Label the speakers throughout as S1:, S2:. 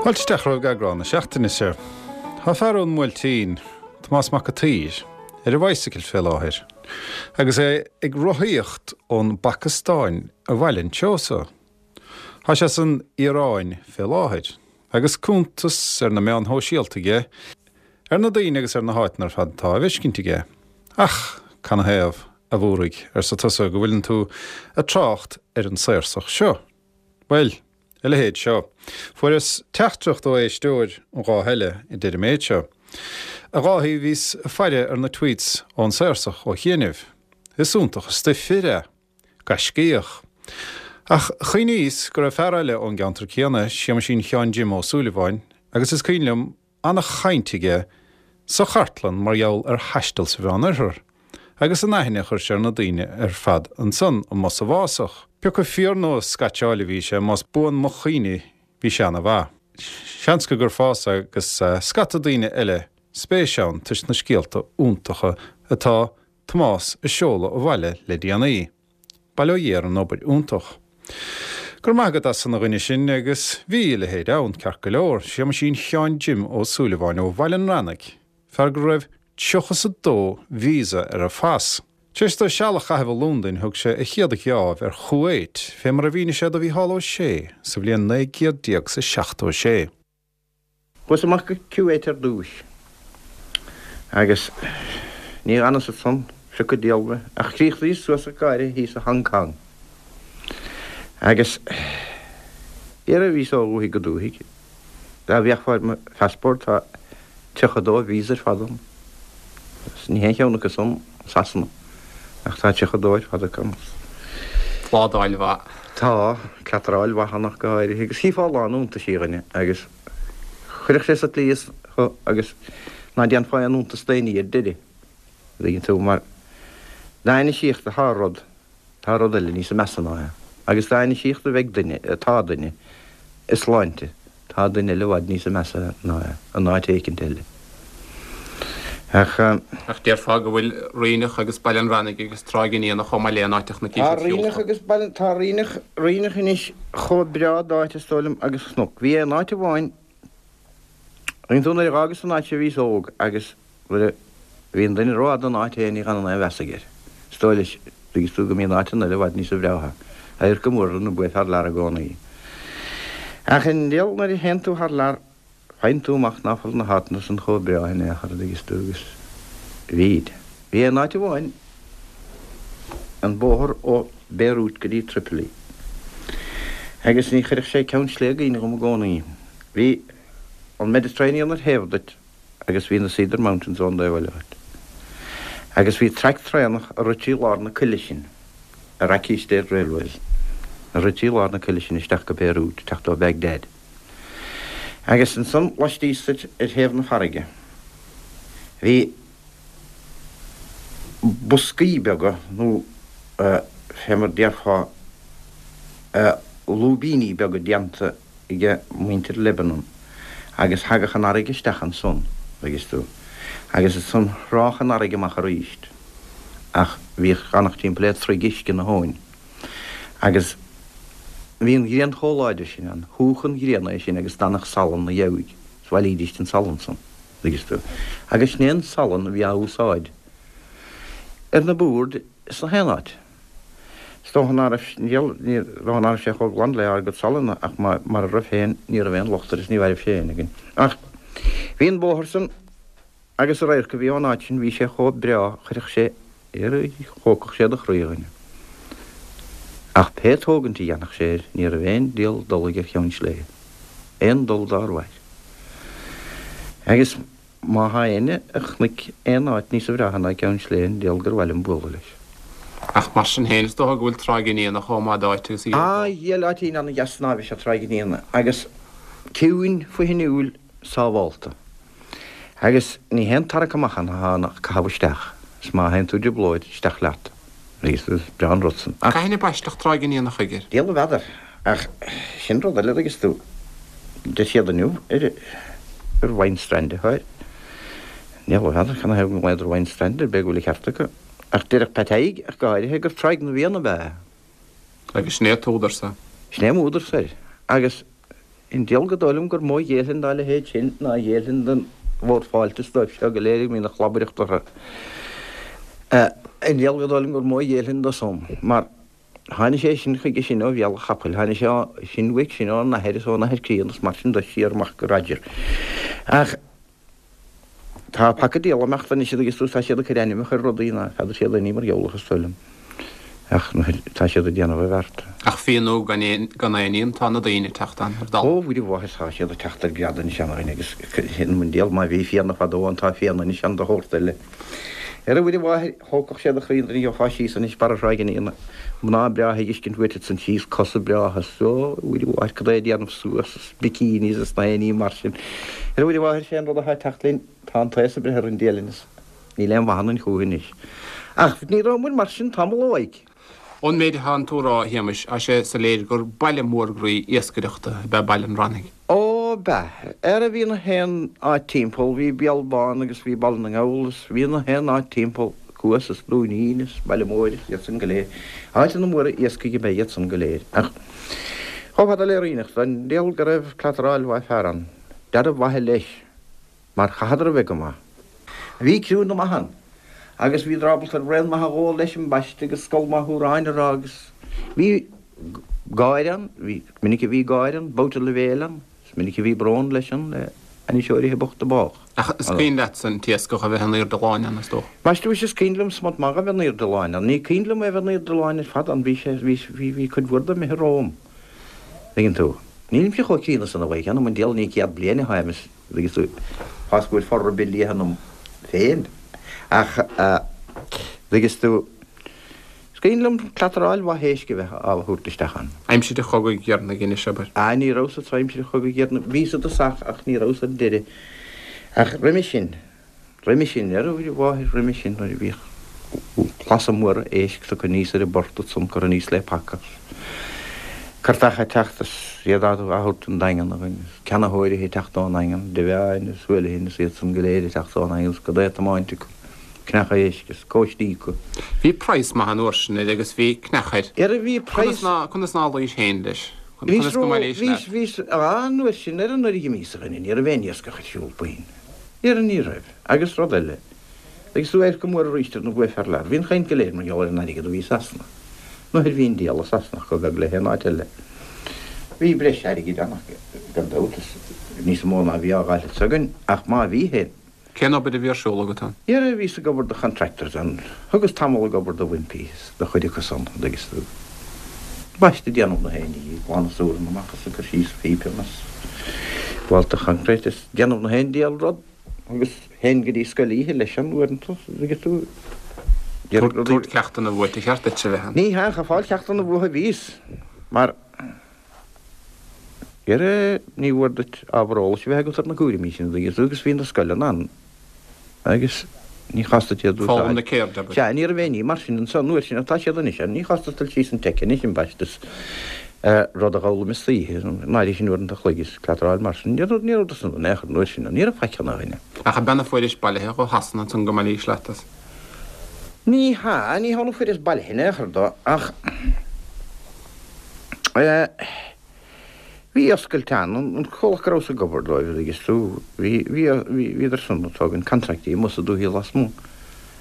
S1: Fáilte isteach romhaibh ag eagrán na seachtaine seo. Tá fear ón mBuailtín, Tomás Mac a' tSaoir, ar a bhicycle fé láthair agus é ag rothaíocht ón bPacastáin abhaile anseo so. Tá sé san Iaráin fé láthair agus cuntas ar na meáin shóisialta aige ar na daoine agus ar na háiteanna ar fad atá á bhfeiscint aige. Ach canathaobh, a Mhóraigh, arsa tusa, go bhfuileann tú ag trácht ar an Saorsach seo? Bhuel, a leithéid seo. Fuaireas teachtaireacht ó éisteoir an lá eile a deir an méid seo. A Dháithí, bhíos ag faire ar na tweets ón Saorsach ó chianaibh. Is iontach an stuif fir é. Gaiscíoch. Ach chuimhníos go raibh fear eile ón gceantar céanna, Séamaisín Sheáin Jim Ó Súilleabháin, agus is cuimhin liom ana-chaint aige sa chartlann mar gheall ar thaisteal sa Mheánoirthear, agus an aithne a chuir sé ar na daoine ar fad ansan amuigh sa bhfásach. Pioca fíor nó scaitseáil a bhí sé, más buan mo chuimhne bhí sé ana-mhaith. Seans go gcuirfeása agus scata daoine eile spéis ann toisc na scéalta iontacha atá Tomás a seoladh abhaile le déanaí. Bail ó Dhia ar an obair iontach. Go raibh maith agat as san a dhuine sin agus bhí a leithéid ann, ceart go leor, Séamaisín Sheáin Jim Ó Súilleabháin ó Bhaile an Reannaigh, fear go raibh tríocha 's a dó visa ar a phas. Tar éis dó seal a chaitheamh i Londain thug sé a chéad gheábh ar Chuwait, fé mar a mhínigh sé do Mhícheál Ó Sé sa bhliain 1976.
S2: Chuas amach go Kuwait ar dtúis agus ní dh'fhanas ansan, phioc an diabhal mé, ach chríochnaíos suas ach go háirithe thíos i Hong Kong. Agus dhera bhíos ó dhúthaigh go dúthaigh, dá bhféachfá ar mo phassport tá 32 visa ar fad ann. Agus ní haon cheann acu san Sasana, ach tá 32 ar fad acu ann.
S3: Pládáil mhaith.
S2: Tá, cleataráil mhaith ann ach go háirithe, agus chífeá a lán iontaisí a dhuine, agus chuirfeadh sé sa tslí thú agus ná déanfá aon iontas d'aon ní ar deireadh, an dtuigeann tú, mar dá ainisíocht atá rud, tá rud eile níosa measa ná é. Agus dá ainisíocht a bheidh duine, atá duine, i sláinte, Tá duine eile i bhfad níosa measa ná é, in áit éicint eile.
S3: Ach. Ach déarfá go bhfuil Ríneach agus Baile an Reannaigh agus Tráigh an Fhianna chomh maith le in áiteacha na
S2: Tá Ríneach agus Baile, tá Ríneach, Ríneach anois chomh breá d'áit is dóigh liom agus cnoc. Bhí aon áit amháin, tuigeann tú nuair a dh'fhágas an áit seo bhíos óg agus Nuair a bhíonn duine rófhada in áit féin ní dh'fhanann aon mheas aige air. Is dóigh leis, dtuigeann tú, go mbíonn áiteanna eile i bhfad níosa bhreátha. Adharc an mhuirne ab ea thar lear i gcónaí. Ach i ndiaidh nuair a théann tú thar lear faigheann tú amach ná fuil na háiteanna san chomh breá in aon chor, a dtuigeas tú, agus bhíd. Bhí aon áit amháin, an bóthar ó Beirut go dtí Tripoli. Agus ní chuirfeadh sé Ceann Sléibhe i gcuimhne dhom i gcónaí. Bhí an Mediterranean ar thaobh duit. agus bhí na Cedar Mountains ón dtaobh eile dhuit. Agus bhí traic traenach a rith trí lár na coille sin, Iraqi State Railways, a rith trí lár na coille sin isteach go Beirut, teacht ó Baghdad. Agus ansan laistíos duit ar thaobh na farraige bhí boscaí beaga nó fé mar déarfá lúibíní beaga déanta age muintir Lebanon agus thagadh an fharraige isteach ansan, dtuigeas tú, agus ansan thrádh an fharraige amach aríst ach bhíodh fanacht timpeall le troigh uisce na habhainn agus bhí an ghrian chomh láidir sin ann, shúdh an ghrian é sin agus d'fhanadh salann 'na dheabhaidh is bhailídíst an salann san, dtuigeas tú, agus sin é an salann a bhí á úsáid ar na boird sna haon áit. Is dócha ná raibh, ní dócha ná raibh sé chomh glan le ár gcuid salainn ach mara raibh féin ní raibh aon locht air is ní mhairfeadh sé éinne againn. Ach bhí an bóthar san agus an radharc a bhí ón áit sin, bhí sé chomh breá, chuirfeadh sé, thógfadh sé do chroí a dhuine. Ach pé tógaint a dhéanfadh sé air, ní raibh aon diabhal dul aige ar Cheann Sléibhe. Aon dul dár mhair. Agus. Má thá éinne a chonaic aon áit níosa bhreátha ná Ceann Sléibhe an diabhal gur mhaith liom bualadh leis.
S3: Ach mar sin féin is dócha go bhfuil Tráigh an Fhianna chomh maith d'áit agus a
S2: gheofá. Á, dhiail áitín ana-dheas snámha is ea Tráigh an Fhianna agus ciúin, fuihinniúil, sábhálta. Agus ní haon tarrac amach ann atá ann ach caitheamh isteach, is má théann tú i dtrioblóid, isteach leat. Is breá an rud san.
S3: Ach. Cathain a baisteadh Tráigh an Fhianna chuige?
S2: Diabhal a bhfeadar. Ach sin rud eile, dtuigeas tú. Deir siad inniu ar gur Wine Strand atá air. Diabhal a bhfeadar canathaobh go nglaodar Wine Strand air, b'fhéidir go bhfuil an ceart acu. Ach déarfadh Pat Thaidhg, ach go háirithe, gur Tráigh na bhFiann ab ea é.
S3: Agus sin é an t-údar-sa.
S2: Sin é m'údar-sa air. Agus. An diabhal gur dóigh liom gur mó a ghéillfinn dá leithéid sin ná a ghéillfinn don Bhord Fáilte is dóibh seo go léir a mbíonn an chlabaireacht orthu. An diabhal gur dóigh liom gur mó a ghéillfinn dó san, mar tháinig sé sin chuige sin ó bhéal an chapaill, tháinig sé sin uaidh sin óna athair is óna athair críonna is mar sin de siar amach go Roger. Ach. Tá paca diabhal imeachta anois agus tá siad ag cur ainmneacha ar rudaí ná feadar siad aon ní mar gheall orthu is dóigh liom. Ach tá siad ag déanamh a bheart.
S3: Ach fianú gan aon fhíon tá na daoine ag teacht ann ar
S2: dalladh. Ó, Mhuire Mháthair, tá siad ag teacht ar greadadh anois ann agus sin an diabhal má bhí fianna fadó ann tá fianna anois ann de shórt eile. Ar a Mhuire Mháthair, thógfadh siad do chroí an duine a gheofá síos anois barra Thráigh an Fhíona, mná breátha ag fheiscint uait ansan síos, cosa breátha, is ó, a Mhuire Mháthair, cad é a déanamh suas is bikinis is na haon ní mar sin. Ar a Mhuire Mháthair, sé an rud atá ag teacht linn, tá an t-aos ag breith orainn dialann is níl aon mhaith ionainn chúiche anois. Ach ní rabhamair mar sin tamall ó mhaidhc.
S3: Ón méid atánn tú a rá, a Shéamais, tá sé soiléir gur baile mór groí iascaireachta ab ea Baile an Rannaigh.
S2: Ó, b'ea. Ara bhí na haon áit timpeall, bhí Béal Bán agus bhí Baile na nGall is bhí na haon áit timpeall, Cuas is Dúinín is Baile Móir is iad san go léir. Áiteanna móra iascaigh ab ea iad san go léir. Ach chomh fada le Ríneach, don diabhal go raibh cleataráil mhaith fear ann. Dealramh mhaithe leis. Mar chaitheadar a bheith go maith. Bhí criúnna maith ann agus bhíodar ábalta braon maith a dh'ól leis ambaiste agus scol maith amhráin a rá agus bhí gáire ann, bhí, is minic a bhí gáire ann, babhta leibhéil ann, is minic a bhí brón leis ann le hainniseoirithe bochta bádh.
S3: Ach is cuimhin leatsa an t-iascach a bheith in aoirde láin ann, is dócha?
S2: Ambaiste mhuise is cuimhin liom smut maith a bheith in aoirde láin ann. Ní cuimhin liom é a bheith in aoirde láin ar fad ann, bhí sé, bhí, bhí, bhí cuid mhór de imithe romham. Tuigeann tú. Nílimse chomh críonna san a Mhaidhc, anam an diabhail ní 100 bliain atá a'm is. Agus tú, fás go bhfuil for ar bith liath ionam féin. Ach, agus tú, is cuimhin liom cleataráil mhaith éisc a bheith á thabhairt isteach ann.
S3: Aimsir an chogaidh dheireanaigh anois, abair.
S2: Ah, ní rabhas anso aimsir an chogaidh dheireanaigh. Bhíos i dtosach ach ní rabhas ar deireadh. Ach roimhe sin. Roimhe sin, ar a mháthair roimhe sin nuair a bhíodh clasa móra éisc tugtha aníos ar an bport ansan curtha aníos le paca curtach ag teacht is iad á thabhairt don Daingean agus ceannaitheoirithe ag teacht ón nDaingean, Devane is Houlihan is iad san go léir ag teacht ón nDaingean is cad é tiomáint acu, cneacha éisc is cóistí acu.
S3: Bhí praghas maith an uair sin air agus bhí cneach air.
S2: Ar bhí praghas.
S3: Conas ná luís féin leis? Conas go mbailís
S2: leat? Bhíos, bhíos, an uair sin ar an uair a dh'imíos a dhuine, ní raibh aon iascach ar siúl puinn. Ara ní raibh. Agus rud eile, agus tú oirc go mór arís ar na bhuaidh fear lear, bhí an chaint go léir mar gheall ar an airgead a bhí i Sasana. Nuair bhí an diabhal i Sasana chomh beag le haon áit eile. Bhí breis airgid ann ach gan dabht is níos mó ná a bhí á dh'fháil anso againn, ach má bhí féin.
S3: Cén obair a bhí ar siúl agat ann?
S2: Ara bhíos ag obair do contractors ann. Thugas tamall ag obair do Wimpey is do chuid acu san, an dtuigeas tú. Ambaiste ag déanamh na haon ní, ag glanadh súranna amach is ag cur síos pípeanna is bhálta choincréit is déanamh na haon diabhal rud agus théinn go dtí scoil oíche leis an uaireanta, an dtuigeas tú.
S3: Tabhairt ceachtanna uait, ar cheart duit a bheith
S2: ann. Ní hea, ach ag fáil ceachtanna uathu a bhíos, mar ara ní mhór duit ábhar eolais a bheith agat ar na cúraimí sin, an dtuigeas tú, agus bhí na scoileanna ann. Agus ní chás duit iad a úsáid.
S3: Foghlaim na ceirde,
S2: abair. Sea, ní raibh aon ní mar sin anso an uair sin ach tá siad anois ann. Ní chás duit dul síos an teic anois, ambaiste, is rud a dh'fhoghlaim istoíche, an áirithe sin uaireanta an chloig is cleataráil mar sin. Ní raibh, ní raibh de san in aon chor an uair sin, ní raibh faic ann a dhuine.
S3: Ach ab ea na fuairis bailithe ó Shasana ansan go mbailís leat as?
S2: Ní hea, ní hea na fuaireas bailithe in aon chor dó ach eh, Bhí oscailt ann, an comhlacht go rabhas ag obair dóibh, an dtuigeas tú, bhí, bhí, bhí, bhíodar san ag tógaint contractaí amuigh sa dúthaigh lasmuigh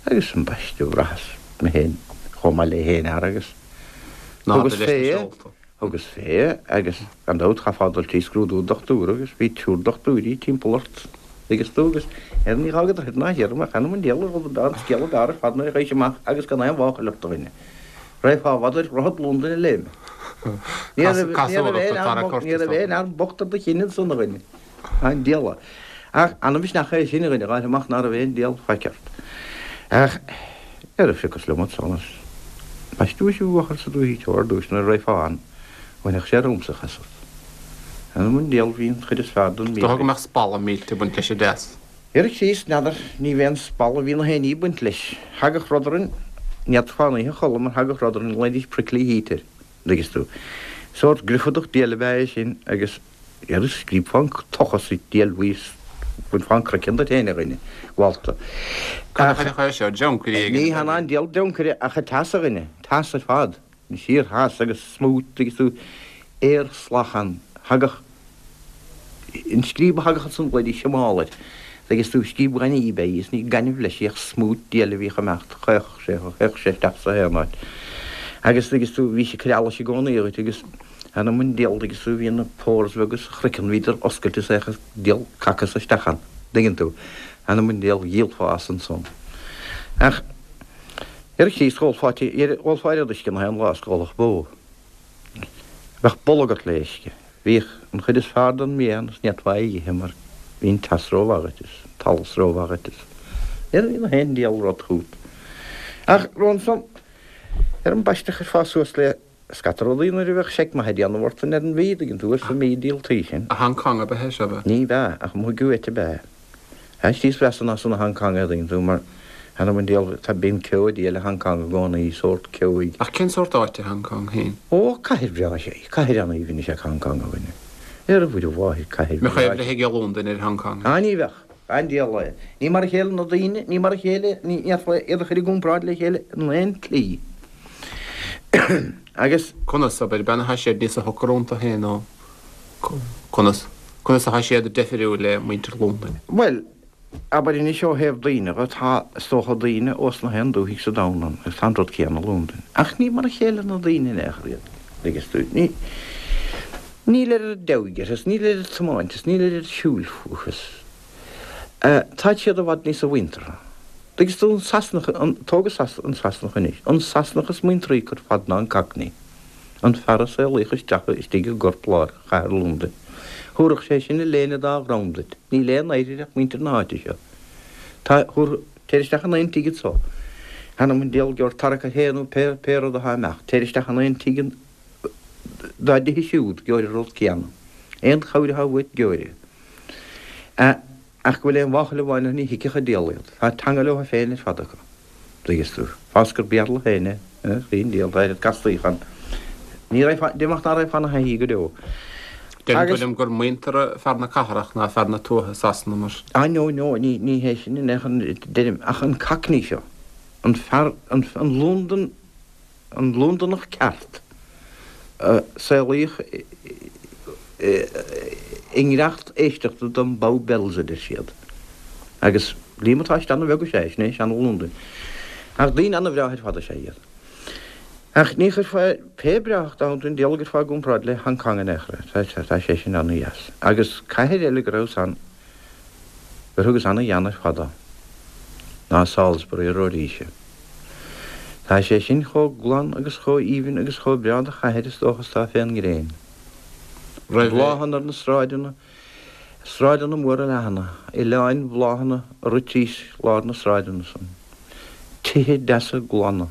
S2: agus ambaiste bhraitheas mé féin chomh maith le haon fhear agus thugas fé, thugas fé agus gan dabht chaithfeá dul trí scrúdú dochtúra agus bhí triúr dochtúirí timpeall ort, an dtuigeas tú, agus ar ní dh'fhágadar thoir ná thiar mé, th'anam 'on diabhal an rud an scéal ab fhearr ar fad nuair a ghabhais amach agus gan aon mháchail ort a dhuine. Raghfá i bhfad ar dhroichead Londain a léim. Ní raibh aon fhear bocht ar do chinn ansan, a dhuine. An diabhal. Ach an-mhisneach é sin, a dhuine, a dh'fháil amach ná raibh aon diabhal faic ort. Ach ar phiocas liom ansan is ambaiste mhuise bhuachaill sa dúthaigh teo ar dtúis nuair a raghfá ann, bhainfeadh sé romhamsa chasadh. Th'anam 'on diabhal bhí an chuid is fearr den
S3: Is dócha go mbeadh spalla millte ag baint leis an dteas.
S2: Ar Chríost, n'fheadar, ní bheadh aon spalla, bhí na haon ní ag baint leis. Thagadh rud orainn, ní fhéadfá an oíche a chodladh mar thagadh rud orainn, ghlaoidís prickly heat air, an dtuigeas tú. Sórt griofadach diail ab ea é sin agus ar scríobfá an tochas sa diail bhuí is bhainfeá an craiceann duit féin, a dhuine, mhálta.
S3: Cad a chuirfeadh é seo, dreoncaire
S2: éigin? Ní hea ná an diabhal dreoncaire ach an teas, a dhuine, teas ar fad, an síor-theas agus smúit, tuigeas tú, aer salach ann. Thagadh. An scríob a thagadh ansan bloody siomál air. Tuigeann tú, scríob ghainimh ab ea í is ní gaineamh leis í ach smúit diail a bhíodh ag imeacht, chaochadh sé, théadh sé isteach sa haon áit. Agus tuigeann tú, bhí sé ag cur allais i gcónaí dhuit agus th'anam 'on diabhal tuigeann tú, bhí na pores bheaga sa chraiceann, bhíodar oscailte is théadh an diabhal caca so isteach ann, tuigeann tú. Th'anam 'on diabhal, dhíolfá as ansan. Ach ar Chríost dh'ólfá, dh'ólfá oiread uisce na haon lá is go dh'ólfadh bó. Bheadh bolg ort le uisce. Bhíodh an chuid is fearr den mbia ann is ní fhéadfá é a dh'ithe mar bhí an teas rómhaith dhuit is an t-allas rómhaith dhuit is ní raibh na haon diabhal rud chút. Ach ansan ar an bpaiste chuirfeá suas le scata rudaí nuair a bheadh seic maith ag déanamh ort ar an mhí, dtuigeann tú, ar an mí díoltaí sin.
S3: I Hong Kong ab ea é seo, ab
S2: ea? Ní b'ea, ach amuigh uait ab ea. Áit níos mheasa ná san i Hong Kong é, dtuigeann tú, mar th'anam 'on diabhal, tá, bíonn ceo diail i Hong Kong i gcónaí, sórt ceoigh.
S3: Ach cén sórt áit é Hong Kong féin?
S2: Ó, cathair bhreá is ea í, cathair an-aoibhinn is ea Hong Kong, a dhuine. Ar a Mhuire Mháthair, cathair
S3: bhreá. Mbeadh aoibh ag Londain ar Hong Kong.
S2: Á, ní bheadh. An diabhal é. Ní mar a chéile na daoine, ní mar a chéile, ní fhéadfá iad a chur i gcomparáid le chéile in aon tslí. Agus.
S3: Conas, abair, b'ea atá siad níosa shocair iontu féin nó conas, conas atá siad deifiriúil le muintir Londain?
S2: Bhuel, abair anois ó thaobh daoine dhe, tá, is dócha, daoine ós na haon dúthaigh sa domhan ann agus tá an rud céanna i Londain. Ach ní mar a chéile na daoine in aon chor iad, dtuigeann tú. Ní, níl oiread deabhaidh orthu is níl oiread tiomáinte is níl oiread siúil fúthu is, eh, táid siad i bhfad níosa mhuinteartha. Dtuigeann tú, an Sasanach, an, tóg an Sasanach anois, an Sasanach is muintearthaí acu ar fad ná an Cockney. An fear a saolaíodh isteach istigh i gcorp-lár chathair Londain. Thabharfadh sé sin a léine dá dhrom duit. Níl aon oidhre ach muintir na háite seo. Tá, thabharfadh, téir isteach in aon tigh anso. Th'anam 'on diabhal gheobhair tarrac air féin nó pé, pé rud athá imeacht. Téir isteach in aon tigh dá dtithe siúd, gheobhair an rud céanna. Aon chabhair athá uait, gheobhair é. Ach go bhfuil aon mháchail amháin orthu ní thuigfeadh an diabhal iad. Tá teanga leo féin ar fad acu. Dtuigeann tú. Fág is gur Béarla féin é. An diabhal, tá oiread castaíocha ann. Ní raghfá, déarfainn ná raghfá ina thaithí go deo.
S3: Deireann tú liom gur muinteartha fear na cathrach ná fear na tuaithe i Sasana mar.
S2: Ah no, no, ní, ní hé sin in aon chor deirim, ach an Cockney seo, an fear, an, an Londain, An Londonach ceart, a saolaíodh i ngiorracht éisteachta don Bow Bells, a deir siad. Agus líomatáiste ana-bheag is ea é, sin é seana-Londain. Ach daoine ana-bhreátha ar fad is ea iad. Ach ní chuirfeá, pé breáthacht ann, an diabhal a gcuirfeá i gcomparáid le Hong Kong in aon chor é. Tá sé sin ana-dheas. Agus cathair eile go rabhas ann, gur thugas ana-ghean ar fad dó, ná Salisbury i Rhodesia. Tá sé sin chomh glan agus chomh aoibhinn agus chomh breá do chathair is dócha is atá fén ngréin. Bláthanna ar na sráideanna, sráideanna móra leathana, oileáin bhláthanna ag rith trís lár na sráideanna san. Tithe deasa glana.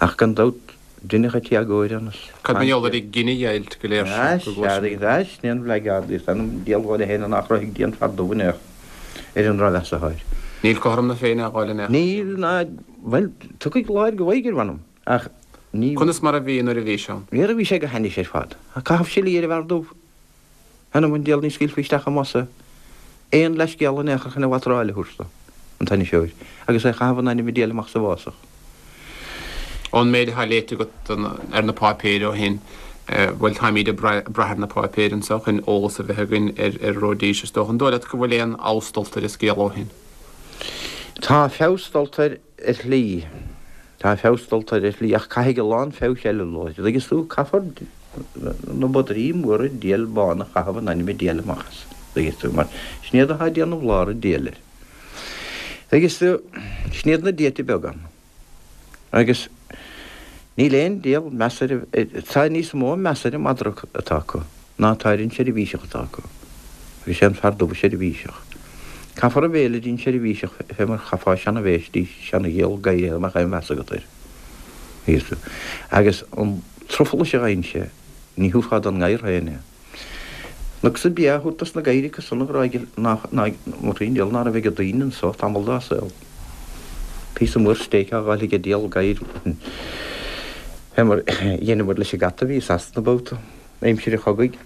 S2: Ach gan dabht deineadh an t-éagóir ann is.
S3: Cad mar gheall ar an gcinedheighilt go léir
S2: sin go gcloisim? Sea, sin é an bhleageardaíocht, th'anam 'on diabhal dhóibh féin nár chruthaigh Dia an fear dubh in aon chor ar an drochmheas atá air.
S3: Níl cothrom na Féinne á fháil in aon
S2: chor. Níl ná, bhuel, tiocfaidh lá air go bhfaighidh ar mh'anam, ach
S3: ní. Conas mar a bhí nuair a bhí sé
S2: ann? Nuair a bhí sé go hainnis ar fad. Caitheamh silí ar an bhfear dubh. Th'anam 'on diabhal ní scaoilfí isteach i mbus é. Aon leithscéal in aon chor chun a bhatráil a thabhairt dó, an t-ainniseoir, agus é a chaitheamh in ainm an diabhail amach sa bhfásach.
S3: Ón méid atá léite agat ar na páipéir ó shin, bhuel, táimíd ag brath ar na páipéir anseo chun eolas a bheith againn ar Rhodesia, is dócha. An dóigh leat go bhfuil aon fheabhas dulta ar an scéal ó shin?
S2: Tá feabhas dulta air ar shlí. Tá feabhas dulta air ar shlí, ach caithfidh a lán feabhais eile dul air. Dtuigeann tú, caithfear na madraí móra diail bána a chaitheamh in ainm an diabhail amach as. Dtuigeann tú, mar sin iad atá ag déanamh lár an diabhail air. Dtuigeann tú, sin iad na diaite beaga ann. Agus níl aon diabhal meas ar, tá níos mó meas ar an madra atá acu ná atá ar an seirbhíseach atá acu. Agus sé an fear dubh an seirbhíseach. Caithfear an bhéile dtí'n seirbhíseach fé mar chaithfeá seana-bhéis dtí seana-ghiall gadhair dá mbeadh aon mheas agat air. Agus an truflais a gheibheann sé, ní thabharfá don ngadhar féin é. Chonac-sa bia á thabhairt dos na gadhair acu san a ghráig nach, ná, an diabhal ná raibh ag daoine anso tamall dá saol. Píosa mór stéic á dh'fháil ag an diabhal gadhair fé mar dheineamar leis an gcat a bhí i Sasana babhta, aimsir an chogaidh.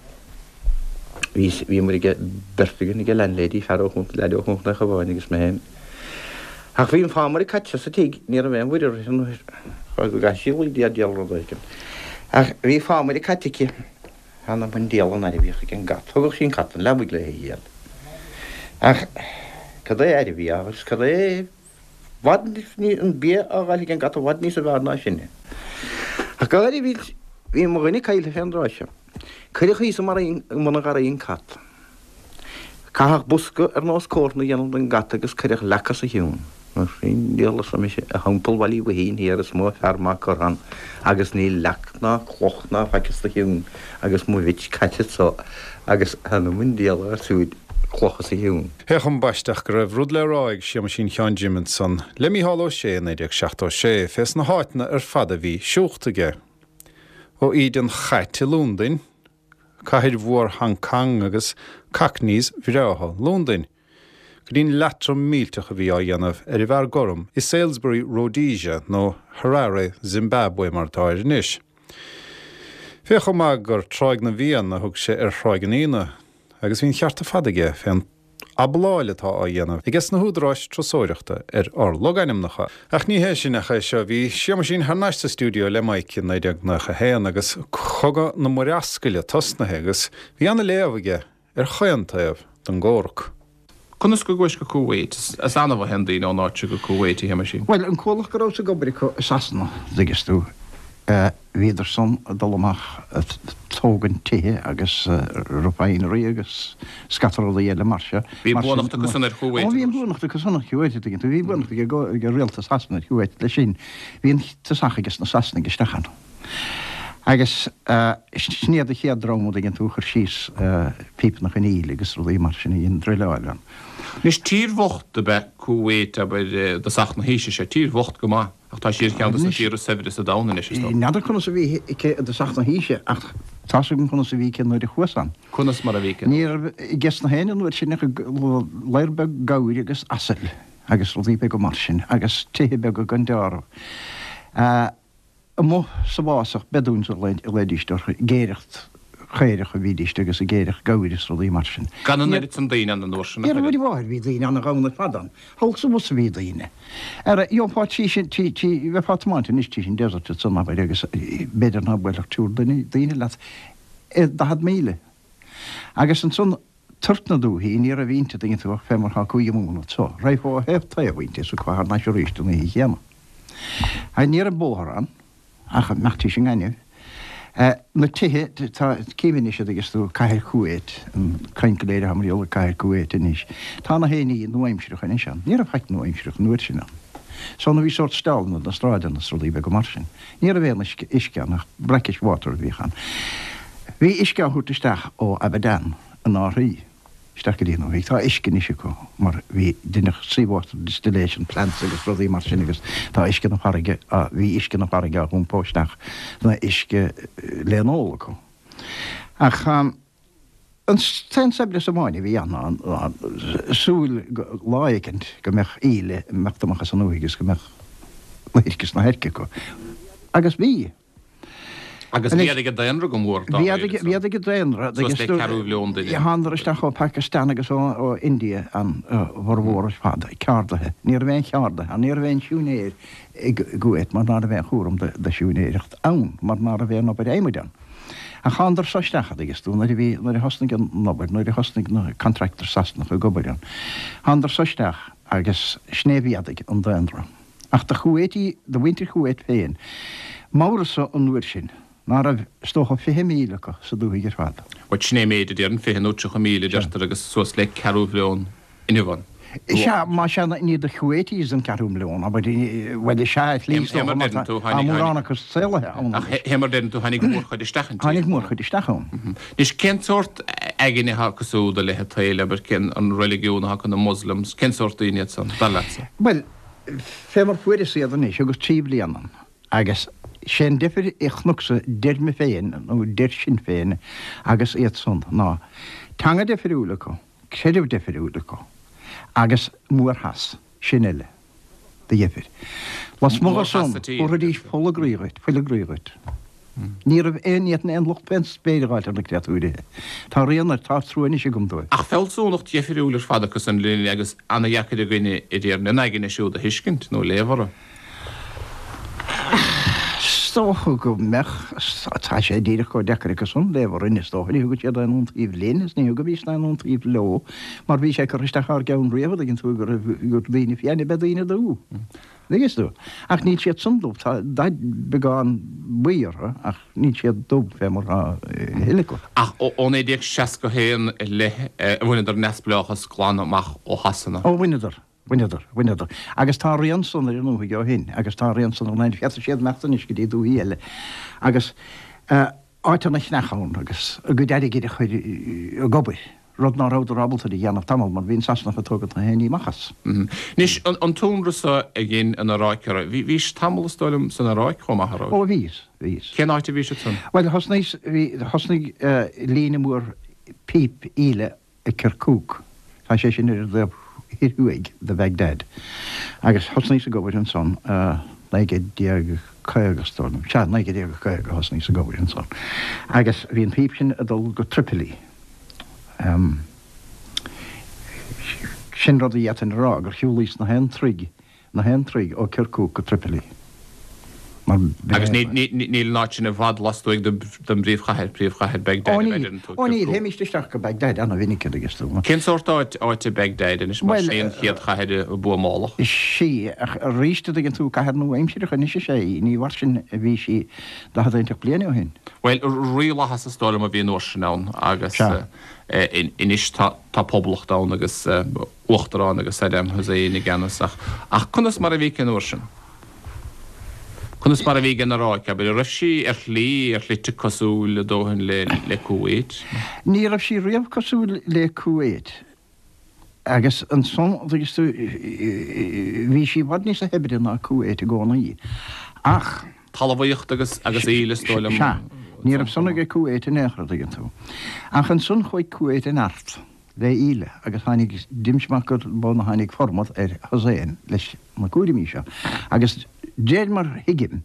S2: Bhí, bhíomar ag, beirt againn ag an landlady, fear ó Chontae, leaid ó Chontae an Chabháin agus mé féin. Ach bhí an fámaire caite sa tigh, ní raibh aon mhuirear uirthi nuair go gcaithfidh sí luí diabhal rud éigin. Ach bhí fámaire caite aici. Th'anam 'on diabhal an aire a bhíodh ag an gcat. Thugadh sí an cat 'on leabaidh léi a dhíol. Ach cad é aire a bhí á agus cad é i bhfad an bia á dh'fháil ag an gcat i bhfad níosa bhfearr ná sinne. Ach go háirithe bhí bhí mo dhuine caillte fén dtráth seo. Cuireadh thíos i mbun an gharraí an cat. Caitheadh bosca ar nós cófra a dhéanamh don gcat agus cuireadh leac os a chionn. Mar sin, diabhal arsa mise, a Theampall Bhaile Uí Mhaithín thiar is mó fear maith curtha ann agus níl leac ná cloch ná faic os do chionn agus mo bhitch caite anso agus th'anam 'on diabhal ar siúd cloch os a chionn.
S1: Féach ambaiste go raibh rud le rá ag Séamaisín Sheáin Jim ansan le Mícheál Ó Sé i 1976 fés na háiteanna ar fad a bhí siúlta aige. Ó íde an chait i Lúndain, cathair mhór Hong Cong agus Cockneys bhreátha Lúndain, go dtí'n leatrom millteach a bhí á dhéanamh ar an bhfear gorm i Salisbury, Rhodesia, nó Harare, Zimbabwe mar atá air anois. Féach chomh maith gur Tráigh na bhFiann a thug sé ar Thráigh an Fhíona, agus bhí an cheart ar fad aige fén abláil atá á dhéanamh ages na húdaráis turasóireachta ar ár logainmneacha. Ach ní hé sin ach é seo, bhí Séamaisín thar n-ais sa stiúideo le Mike i 1991 agus Cogadh na Murascaille tosnaithe agus bhí ana-léamh aige ar chaon taobh den gcomhrac.
S3: Conas go gcuais go Kuwait? Is annamh a théann daoine ón áit seo go Kuwait, a Shéamaisín.
S2: Bhuel, an comhlacht go rabhas ag obair acu i Sasana, dtuigeas tú, Bhíodar san ag dul amach ag tógaint tithe agus refinery agus scata rudaí eile mar seo.
S3: Bhí buannacht acu san ar Kuwait.
S2: Ó bhí an buannacht acu san ar Kuwait, an dtuigeann tú. Bhí buannacht ag rialtas Shasana ar Kuwait leis sin. Bhí an tosach ages na Sasanaigh isteach ann. Agus sin iad an chéad dream, an dtuigeann tú, a chuir síos pípeanna chun aoil agus rudaí mar sin a dhein druileáil ann.
S3: Anois tír bhocht ab ea Kuwait, abair, i dtosach na haoise seo, tír bhocht go maith. Ach tá sí ar cheann de na tíortha is saibhre sa domhan anois, is dócha.
S2: N'fheadar conas a bhí aici i dtosach na haoise, ach tá's agam conas a bhí aici nuair a chuas ann.
S3: Conas mar a bhí aici?
S2: Ní raibh ages na héinne an uair sin ach léar beag gabhair agus asail agus rudaí beaga mar sin, agus tithe beaga gan deáramh. Amuigh sa bhfásach, Bedouins a ghlaoidíst orthu, ag aoireacht chaorach a bhídíst agus ag aoireacht gabhair is rudaí mar sin.
S3: Gan an oiread san daoine ann an uair sin,
S2: a Mhuire mháthair, bhí daoine ana-ghann ar fad ann. Thall sa bhus a bhí daoine. Ara, gheofá tís an, tí, tí, bheifeá ag tiomáint anois tís an desert ansan, abair, agus b'fhéidir ná buailfeadh triúr duine, daoine leat i 40 míle. Agus ansan, toirt na dúthaí, ní raibh inti, tuigeann tú, ach fé mar thá Cúige Mumhan anso. Raghfá ó thaobh taobh inti is thiocfá thar n-ais arís an oíche chéanna. Agus ní raibh bóthar ann. Ach imeacht tís an ngaineamh. Na tithe, tá, cím anois a dtuigeas tú, cathair Kuwait, an caint go léir atá mar gheall ar cathair Kuwait anois. Tá na haon ní nua-aimsireach anois ann. Ní raibh faic nua-aimsireach an uair sin ann. So nó bhí sórt steallanna na sráideanna is rudaí beaga mar sin. Ní raibh aon uisce, uisce ann ach brackish water a bhíodh ann. Bhí uisce á thabhairt isteach ó Abadan in árthaí. isteach go dtí an dúthaigh. Tá uisce anois acu mar bhí deineadh sea water distillation plants agus rudaí mar sin agus tá uisce na farraige á, bhí uisce na farraige á hiompó isteach ina uisce le n-ól acu. Ach an t-aon saibhreas amháin a bhí ann ná ná súil go lá éicint go mbeadh aoil ag imeacht amach as an ndúthaigh agus go mbeadh na hoirc is na hairce acu. Agus bhí.
S3: Agus mhéadaigh an daonra go mór dá réir
S2: ansan. Mhéadaigh an daonra.
S3: Suas le ceathrú mhilliún duine.
S2: Thánadar isteach ó Pakistan agus ó India an bhformhór ar fad, ceardaithe. Ní raibh aon cheardaithe ann, ní raibh aon siúinéir i gCuwait mar ná raibh aon chúram de siúinéireacht ann mar ná raibh aon obair adhmaid ann. Ach thánadar so isteach, a dtuigeas tú, nuair a bhí, nuair a thosnaigh an obair, nuair a thosnaigh na contractors Sasanacha ag obair ann. Thánadar so isteach agus sin é a mhéadaigh an daonra. Ach do Chuwaiti, do mhuintir Chuwait féin, m'amhras-sa an uair sin ná raibh, is dócha, 20,000 acu sa dúthaigh ar fad.
S3: Bhuel, sin é an méid a déarfainn, 20 nó 30,000 a deirtear agus suas le ceathrú mhilliún inniu ann.
S2: Sea, más ea, ní de Chuwaitis an ceathrú milliún, abair, bhuel, is ea, ar shlí, is dócha, mar tá mórán acu saolaithe ann
S3: anois. Ach fé mar a deireann tú, tháinig mórchuid isteach inti.
S2: Tháinig mórchuid isteach ann.
S3: Anois, cén sórt aigne atá acu siúd i leith an tsaoil, abair, cén an reiligiún atá acu, na Muslims, cén sórt daoine iad san, dar leatsa?
S2: Bhuel, fé mar fuaireas iad anois, thugas 3 bliana ann, agus sé an deifir a chonacsa 'dir me féin, nó 'dir sinn féin, agus iad san, ná teanga deifiriúil acu, creideamh deifiriúil acu, agus mórtheas, sin uile, de dheifir. Lasmuigh de san, thabharfaidís fuil a gcroí dhuit, fuil a gcroí dhuit. Ní raibh aon, ní fhéadfainn aon locht fén spéir a dh'fháilt ar na créatúirithe. Tá rian air, tá trua anois agam dóibh.
S3: Ach fealsúnacht dheifiriúil ar fad acu san linn agus ana-dheacair againne i dTéirinn a n-aigne siúd a thuiscint nó léamh orthu.
S2: dócha go mbeadh. Tá sé díreach chomh deacair acu san léamh orainn, is dócha. Ní thugann siad aon iontaoibh linn is ní thugaimis aon iontaoibh leo mar bhí sé curtha isteach ár gceann riamh, a dtuigeann tú, go raibh, gur daoine fiáine ab ea daoine dubha. Dtuigeann tú? Ach níl siad san dubh, tá dath beagán buí orthu ach níl siad dubh fé mar atá a thuilleadh acu.
S3: Ach ó 1961 i leith a bhaineadar neamhspleáchas glan amach ó Shasana.
S2: Ó bhaineadar, bhaineadar, bhaineadar. Agus tá a rian san ar an ndúthaigh ó shin agus tá a rian san ar an Féadfaidh siad imeacht anois go dtí dúthaí eile agus áit ana chneach ann agus a gcuid airgid a chur ag obair. rud ná rabhadar ábalta a dhéanamh tamall mar bhí an Sasanach ag tógaint na haon ní amach as.
S3: Anois, an t-ionradh so a dhein an Iaráic oraibh, bhís tamall is dóigh liom san Iaráic chomh maith, a raibh?
S2: Ó bhíos, bhíos.
S3: Cén áit a bhís ansan?
S2: Bhuel, thosnaíos, bhí, thosnaigh líne mór píp íle i Kirkuk, tá sé sin ar an dtaobh thoir thuaidh de Bhagdad, agus thosnaíos ag obair ansan 1950 is dóigh liom, sea, 1950 a thosnaíos ag obair ansan, agus bhí an phíp sin ag dul go Tripoli. Sin rud a d'fhéadfainn a rá, gur shiúlaíos na haon troigh, na haon troigh ó Kirkuk go Tripoli.
S3: Mar b'in Agus é. níl an áit sin i bhfad lastuaidh den bpríomhchathair, príomhchathair Baghdad,
S2: Ó a níl, deireann tú, ó níl, Kirkuk. théimíst isteach go Baghdad ana-mhinic, a dtuigeas tú.
S3: Cén sórt áit, áit é Baghdad anois, mar Bhuel, sé an chéad chathair a buamáladh?
S2: Sea, ach arís, a dtuigeann tú, cathair nua-aimsireach anois is ea í, ní mar sin a bhí sí 40 inteacht bliain ó shin.
S3: Bhuel, rílathas is dóigh liom a bhí an uair sin ann agus anois tá poblacht ann agus uachtarán agus Saddam Hussein i gceannas ach ach conas mar a bhí aici an uair sin? Conas mar a bhí ag an Iaráic, abair, an raibh sí ar shlí, ar shlite cosúil a dóthain le le Kuwait?
S2: Ní raibh sí riamh cosúil le Kuwait. Agus ansan, dtuigeas tú, bhí sí i bhfad níosa shaibhre ná Kuwait i gcónaí. Ach.
S3: Talmhaíocht agus, agus íle, is dóigh liom.
S2: Sea. Ní raibh san aige Kuwait in aon chor, dtuigeann tú. Ach ansan chuaigh Kuwait i neart le íle agus tháinig, d'imse amach gur b'ann a tháinig formad ar Hussein leis na cúraimí seo. Agus d'réir mar thuigim,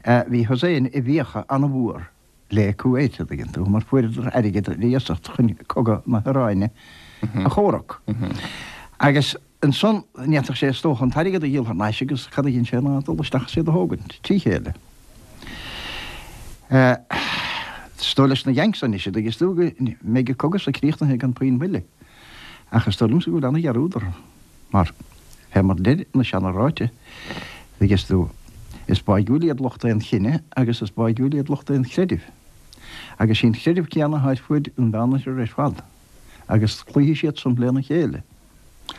S2: bhí Hussein i bhfiacha an-mhór le Kuwait, a dtuigeann tú, mar fuaireadar airgead ar iasacht chun cogadh na hIaráine a chomhrac. Agus ansan, ní fhéadfadh sé is dócha an t-airgead a dhíol thar n-ais agus cad a dhein sé ná dul isteach is iad a thógaint, trí chéile. Is dóigh leis na Yanks anois, a dtuigeas tú, go mbeidh an cogadh so críochnaithe gan puinn moille. Ach is dóigh liomsa go bhfuil ana-dhearúd orthu. Mar, fé mar deir na seana-ráite, dtuigeas tú, is báigiúil iad lucht aon chine agus is báigiúil iad lucht aon chreidimh. Agus sí an creideamh céanna atá ar fuaid an Mheánoirthir ar fad, agus cloífidh siad san lena chéile.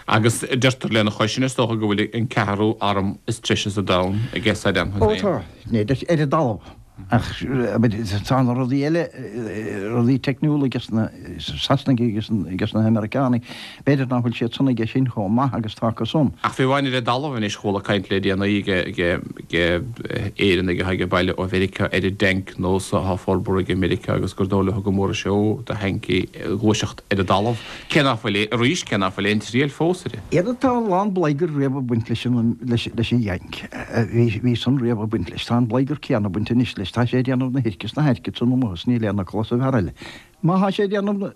S3: Agus deirtear lena chois sin, is dócha, go bhfuil an ceathrú arm is treise sa domhan aige Saddam
S2: Hussein. Ó tá, ar an dtalamh. Ach tá na rudaí eile, rudaí teicniúla aige na Sasanaigh agus aige na hAmeiriceánaigh, b'fhéidir nach bhfuil siad san aige sin chomh maith agus atá acu san.
S3: Ach fiú amháin ar an dtalamh anois, chuala caint le déanaí ag Éireannaigh atá ag baile ó Mheiriceá ar an dtanc nua so atá á forbartha ag Meiriceá agus gur dóigh leo go mór is seó do thanc í ag gluaiseacht ar an dtalamh. Cé nach bhfuil, arís, cé nach bhfuil aon triail fós uirthi.
S2: Iad tá a lán bladhgar riamh ag baint leis an, leis an Yank. Bhí san riamh ag baint leis. Tá an bladhgar céanna ag baint anois leis. Tá sé ag déanamh na hoirce is na hairce san amuigh is níl aon fhocal as an bhfear eile. Má thá sé ag déanamh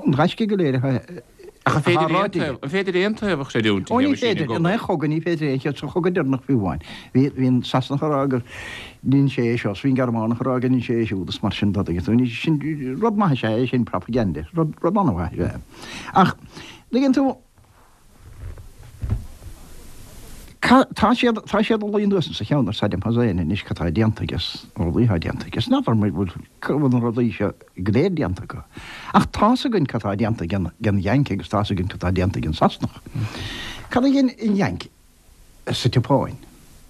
S2: an ghaisce go léir atá
S3: Ach an féidir aon taobh, an féidir aon taobh a chreidiúint
S2: Ó ní féidir, in aon chogadh ní féidir aon chead, sa chogadh deireanach fiú amháin. Bhí, bhí an Sasanach ag rá gur dhein sé é seo is bhí an Gearmánach ag rá gur dhein sé é siúd is mar sin de. Tuigeann tú, sin, rud maith is ea é sin, propaganda, rud, rud an-mhaith is ea é. Ach, tuigeann tú, ca, tá siad, tá siad ag luí anuas sa cheann ar Saddam Hussein anois cad tá déanta aige is na rudaí atá déanta aige. Is n'fheadar an bhfuil, cá bhfuil na rudaí seo go léir déanta acu. Ach tá's againn cad tá déanta ag an, ag an Yank agus tá's againn cad tá déanta ag an Sasanach. Cad a dhein an Yank sa tSeapáin?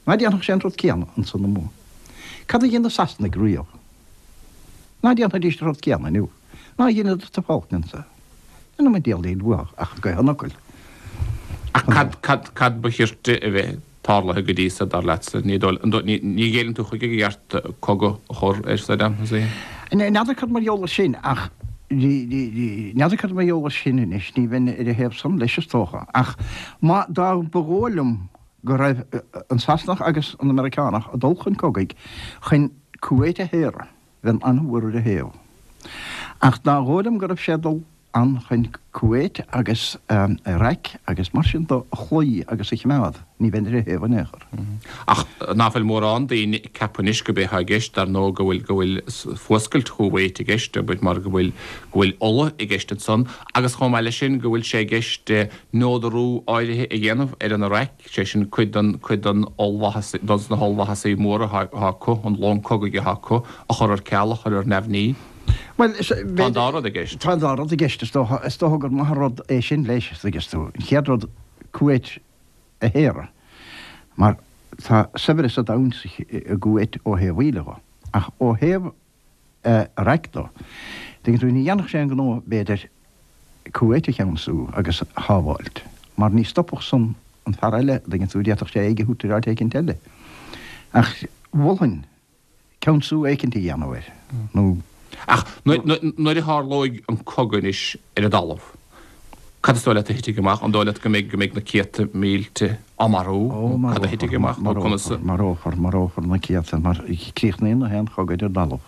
S2: Ná déanfadh sé an rud céanna ansan amuigh? Cad a dhein na Sasanaigh riamh? Ná déanfaidís an rud céanna inniu? Ná dheineadar sa Falklands é? Níl an diabhal aon uathu ach gaoth an fhocail.
S3: Ach cad, cad, cad ba chirte a bheith tarlaithe go dtí so, dar leatsa? Ní dóigh, ní, ní ghéilleann tú chuige gur cheart cogadh a chur ar Saddam Hussein?
S2: N'fheadar cad mar gheall air sin ach n'fheadar cad mar gheall air sin anois, ní bheinn ar a thaobh san leis is dócha. Ach má, dá mba dhóigh liom go raibh an Sasanach agus an Meiriceánach ag dul chun cogaidh chun Kuwait a shaoradh, bheinn an-mhór ar a thaobh. Ach dá dhóigh liom go raibh sé ag dul. ann chun Kuwait agus Iraq agus mar sin de a chloí agus a choimeád, ní bheinn ar a thaobh in aon chor.
S3: Ach ná fuil mórán daoine ag ceapadh anois go b'é atá i gceist, dar ndóigh, go bhfuil, go bhfuil fuascailt Chúwait i gceist, abair, mar go bhfuil, go bhfuil ola i gceist ansan, agus chomh maith leis sin go bhfuil sé i gceist neodarú áirithe a dhéanamh ar an Iraq, sé sin cuid den, cuid den ollmhaitheas, dos na hollmhaitheasaí móra atá, atá acu, an long cogaidh atá acu, a chur ar ceal, a chur ar neamhní.
S2: Bhuel,
S3: Tá an dá rud i gceist.
S2: Tá an dá rud i gceist. Is dócha, is dócha gur maith an rud é sin leis, an dtuigeann tú. An chéad rud, Kuwait a shaoradh, mar tá saibhreas an domhain i gCuwait ó thaobh ola dho. Ach ó thaobh Iraq do, tuigeann tú, ní dhéanfadh sé an gnó, b'fhéidir, Kuwait a cheansú agus a shábháilt, mar ní stopfadh san an fear eile, an dtuigeann tú, d'fhéadfadh sé aghaidh a thabhairt ar áit éicint eile. Ach mholfainn ceansú éicint a dhéanamh air,
S3: nó. Ach nuair a tharlóidh an cogadh anois ar an dtalamh, cad is dóigh leat a thitfidh amach? An dóigh leat go mbeidh, go mbeidh na céadta mílte á marú?
S2: Ó,
S3: Cad a thitfidh amach
S2: nó conas a. Marófar, marófar na céadta mar críochnaíonn na haon chogadh ar an dtalamh.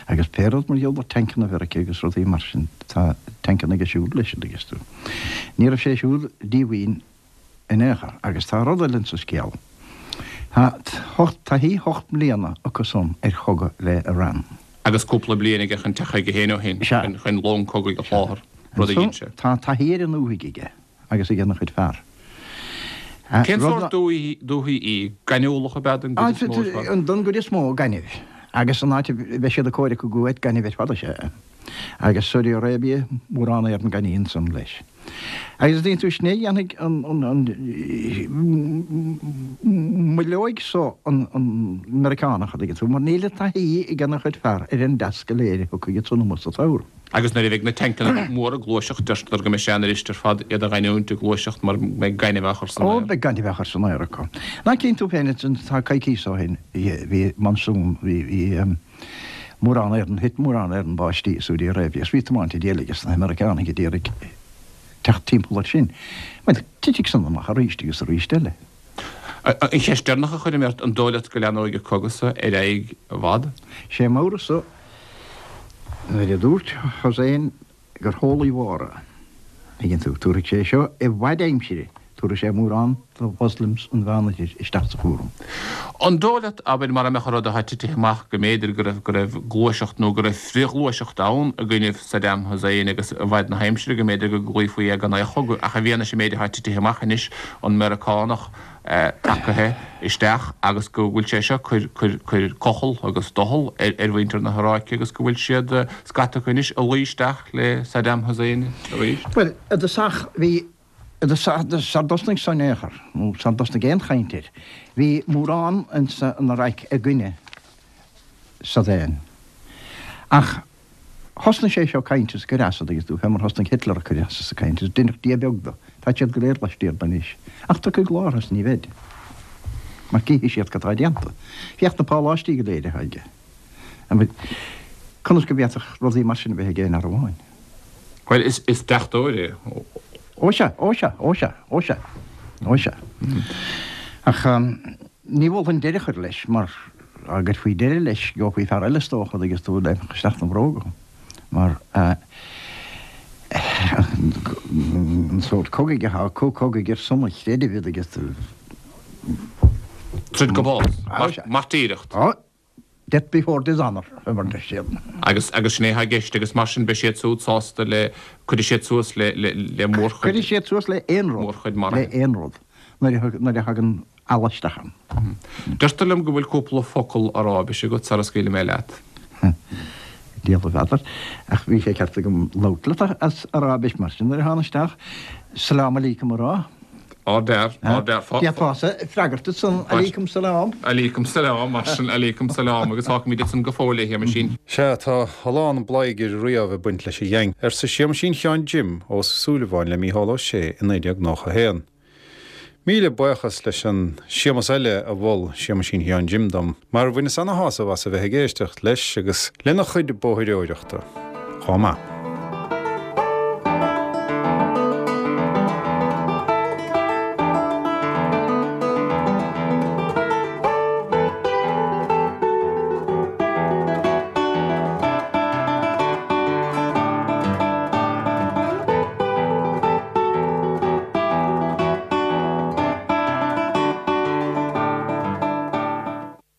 S2: Agus pé rud mar gheall ar tancanna Mheiriceá agus rudaí mar sin, tá tancanna aige siúd leis, an dtuigeann tú. Ní raibh sé siúd díomhaoin in aon chor. Agus tá rud eile insa scéal. Tá taithí hocht mbliana acu san ar chogadh le Iran.
S3: Agus cúpla bliain aige chun teacht chuige féin ó shin, chun long cogaidh a sholáthar, rud a dhein sé.
S2: Tá taithí ar an ndúthaigh aige agus ag ana chuid fear.
S3: Cén sórt dúthaí í? Gaineamhlach ab ea don gcuid is mó ar
S2: fad? Don gcuid is mó, gaineamh. Agus an áit a mbeidh siad ag comhrac i gCuwait, gaineamh ar fad is ea é. Agus Saudi Arabia, mórán ar an gaineamh ansan leis. Agus an dtuigeann tú, sin é a dhéanfaidh an, moilleoidh so an Meiriceánach, an dtuigeann tú, mar níl an taithí ag ana chuid fear ar an dtasc go léir a thiocfaidh ansan amuigh sa tsamhradh.
S3: Agus nuair a bheidh na tancanna móra ag gluaiseacht, deirtear go mbeidh sé an-fhuirist ar fad iad a ghiniúint ag gluaiseacht mar go mbeidh gaineamh á chur san
S2: aer. Ó, beidh gaineamh á chur san aer acu. Ná cíonn tú féin, tá coicíos ó shin, bhí monsoon, bhí, mórán ar an, thit mórán ar an báistí i Saudi Arabia is bhí tiomáint an diabhail ages na hAmeiriceánaigh a d'iarraidh teacht timpeall air sin. Bhuel, titfidh san amach arís agus arís eile.
S3: An cheist deireanach a chuirfidh mé ort, an dóigh leat go leathnóidh an cogadh so ar aghaidh i bhfad?
S2: Sé m'amhras-sa nuair a dúirt Hussein gur theolaí mhór é, tuigeann tú, tabharfaidh sé seo i bhfad aimsire, tabharfaidh sé mórán de Mhoslims an Mheánoirthir isteach sa chúram.
S3: An dóigh leat, abair, mara mbeadh an rud atá titithe amach, go mb'fhéidir go raibh, go raibh gluaiseacht nó go raibh frithghluaiseacht ann i gcoinnibh Saddam Hussein agus i bhfad na haimsire go mb'fhéidir go gcloífí é gan aon chogadh, ach i bhfianaise an méid atá titithe amach anois, an Meiriceánach tagaithe isteach agus go bhfuil sé seo cur, cur, cur cochall agus doicheall ar, ar mhuintir na hIaráice agus go bhfuil siad, scata acu anois, ag luí isteach le Saddam Hussein
S2: arís. Bhuel, i dtosach bhí, i dtosach, sar dtosnaigh san in aon chor, nó sar dtosnaigh aon chaint air, bhí mórán insa an Iaráic i gcoinne Saddam. Ach Thosnaigh sé seo ag caint is ag cur as, an dtuigeann tú, fé mar thosnaigh Hitler ag cur as is ag caint is deineadh Dia beag do. Táid siad go léir laistiar de anois. Ach tiocfaidh lá is ní bheid. Mar cífidh siad cad tá déanta. Féach na páláistí go léir atá aige. Conas go bhféadfadh rudaí mar sin a bheith ag aon fhear amháin?
S3: Bhuel, is deachtóir é.
S2: Ó sea, ó sea, ó sea, ó sea, ó sea. Ach. Ní mholfainn deireadh a chur leis, mar dá gcuirfí deireadh leis, gheofaí fear eile is dócha, an dtuigeann tú, a léimfeadh isteach 'na bhróga, mar an sórt cogaidh atá acu, cogaidh ar son an chreidimh, an dtuigeann tú.
S3: Troid go bás. Mairtíreacht.
S2: Death before dishonour, mar a deir siad.
S3: Agus, agus sin é atá i gceist, agus mar sin beidh siad siúd sásta le, cuirfidh siad suas le, le, le mórchuid.
S2: Cuirfidh siad suas le aon rud.
S3: Mórchuid maraithe.
S2: Le aon rud, nuair a, nuair a thagann Allah isteach ann.
S3: Deirtear liom go bhfuil cúpla focal Aráibise agat sara scaoilfidh mé leat.
S2: Diabhal a bhfeadar, ach bhí sé ceart agam labhairt leat as Aráibis mar sin nuair a thána isteach, Salaam alaikum a rá.
S3: Ardfhear, ardfhear.
S2: D'fhéadfása freagairt ansan, Alaikum salam.
S3: Alaikum salam, mar sin, alaikum salam, agus fágfaimid ansan go fóill é, a Shéamaisín.
S1: Sea, tá a lán bladhaire riamh ag baint leis an gheaing, arsa Séamaisín Sheáin Jim Ó Súilleabháin le Mícheál Ó Sé i 1991. Míle buíochas leis an Séamas eile a mhol Séamaisín Sheáin Jim dom, mar bhaineas ana-shásamh as a bheith ag éisteacht leis agus lena chuid bóithreoireachta chomh maith.